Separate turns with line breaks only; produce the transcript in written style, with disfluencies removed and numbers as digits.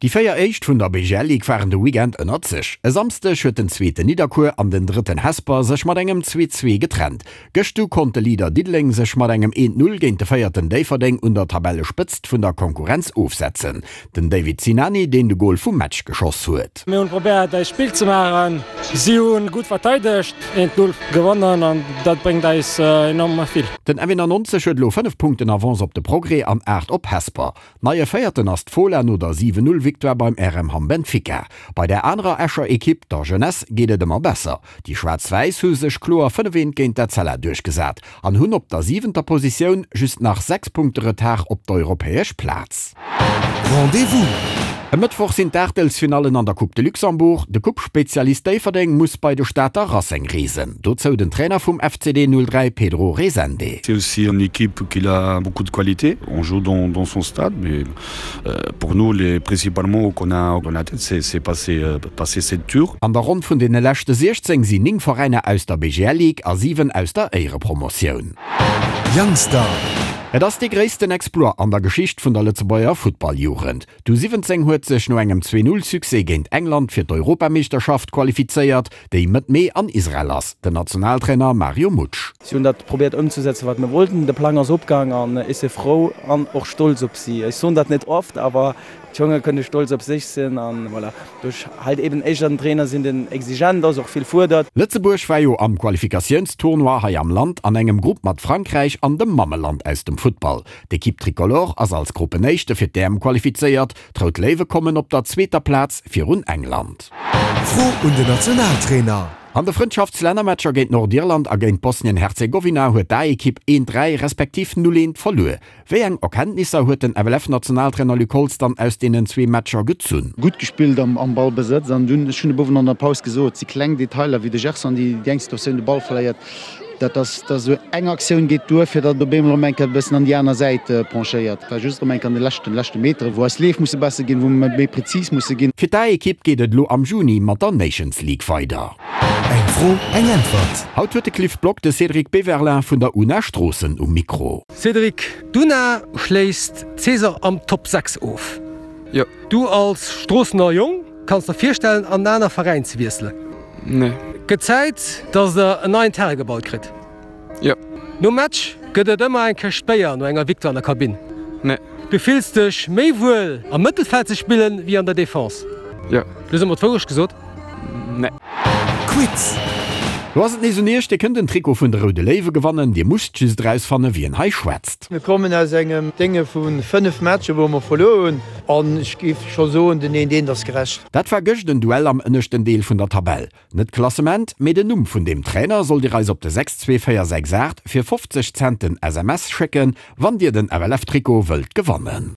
Déi 4 éischt vun der BGL Ligue waren de Weekend ënnert sech. E Samsdeg huet den zweeten Nidderkuer an den drëtten Hesper sech mat engem 2, 2 getrennt. Gëscht du konnt de Leader Diddeleng sech mat engem 1, 0 géint de véierten Déifferdeng un der Tabellespëtzt vun der Konkurrenz ofsetzen. Den David Sinani deen de Gol vum Match geschoss huet.
Mir hunn probéiert eist Spill ze maachen, si hunn gutt verteidegt, 1, 0 gewonnen an dat bréngt eis enorm vill.
Den F91 huet elo 5 Punkten Avance op de Progrès an 8 op Hesper. Neie Véierten ass d'Fola no der 7, 0 Victoire beim RM Hamm Benfica. Bei der anerer Escher Ekipp, der Jeunesse, geet et ëmmer besser. Déi Schwaarz-Wäiss hu sech kloer 5, 1 géint d'Etzella duerchgesat an hunn op der siwenter Positioun just nach 6 Punkte Retard op d'europäesch Plaz.
Rendez-vous!
E Mëttwoch sinn d'Aachtelsfinallen an der Coupe de Luxembourg. De Coupe-Spezialist Déifferdeng muss bei de Stater Racing reesen. Dozou den Trainer vum FCD 03 Pedro Rezende.
C'est aussi une équipe qui a beaucoup de qualité. On joue dans, dans son stade, mais euh, pour nous les principalement qu'on a dans la tête c'est passer, euh, passer cette tour.
An der Ronn vun deene leschte 16 sinn 9 Veräiner aus der BGL Ligue a 7 aus der Éierepromotioun.
Youngstar.
Et ass dee gréissten Exploit an der Geschicht vun der Lëtzebuerger Futtballjugend. D'U 17 huet sech no engem Zwee-Null-Succès géint England fir d'Europameeschterschaft qualifizéiert, déi Mëtt Mee an Israel ass. Den Nationaltrainer Mario Mutsch.
Si hunn dat probéiert ëmzesetzen, wat mir wollten. De Plang ass opgaang an ech si frou an och stolz op si. Ech soen dat net oft, awer d'Jonge kënne stolz op sech sinn an voilà, do ech halt eben éischter en Trainer sinn, deen exigent ass, och vill fuerdert.
Lëtzebuerg war jo am Qualifikatiounstournoi hei am Land an engem Grupp mat Frankräich an dem Mammeland aus dem Futtball. D'Ekipp Tricolore ass als Gruppenéischte fir d'EM qualifizéiert, d'Rout Léiwe kommen op der zweeter Plaz virun England.
Fro un den Nationaltrainer.
An de Frëndschaftslännermatcher géint Nordirland a géint Bosnien-Herzegowina huet d'A-Ekipp 1, 3 respektiv 0, 1 verluer. Wéi eng Erkenntnisser huet den FLF-Nationaltrainer Luc Holtz dann aus deenen zwee Matcher gezunn?
Gutt gespillt am Ballbesëtz an dunn, ech hunn e Bouwen an der Paus gesot, si kleng Detailer wéi de Gerson, déi déi eng Situatioun de Ball verléiert, Dat ass da sou eng Aktioun geet duer, fir datt et op eemol erëm eng Kéier e bëssen an déi aner Säit penchéiert. Et war just erëm eng Kéier an de leschten, leschte Meteren, wou eis Leef musse besser ginn, wou mer méi prezis musse ginn.
Fir d'A-Ekipp geet et elo am Juni mat der Nations League weider.
Eng Fro, eng Äntwert.
Haut huet de Cliff Block de Cédric Beverlin vun der una Stroossen um Mikro.
Cédric, d'UNA schléisst d'Saison am Top 6 of.
Jo.
Du als Stroossener Jong Kanns der virstellen an en aner Veräin ze wiesselen?
Nee.
Gëtt Zäit dass der en neien Terrain gebaut kritt?
Jo.
Nom Match gëtt et ëmmer eng Këscht Béier no enger Victoire an der Kabinn?
Nee.
Du fills dech méi wuel am Mëttelfeld ze spillen wéi an der Defense?
Jo.
Du hues ëmmer d'Wourecht gesot?
Nee.
Quiz.
Lo ass et nees un iech, dir kënnt en Trikot vun de Roude Léiwe gewannen, dir musst just erausfanne wien hei schwätzt.
Mir kommen aus engem Dénge vu 5 Matcher wou mer verluer hunn an ech géif scho soen, den eent eent ass gerecht.
Dat war gëscht en Duell am ënneschten Deel vun der Tabell. Net d'Klassement, mee den Numm vun deem Trainer sollt dir eis op de 62468 fir 50 Cent den SMS schécken, wann dir den FLF-Trikot wëllt gewannen.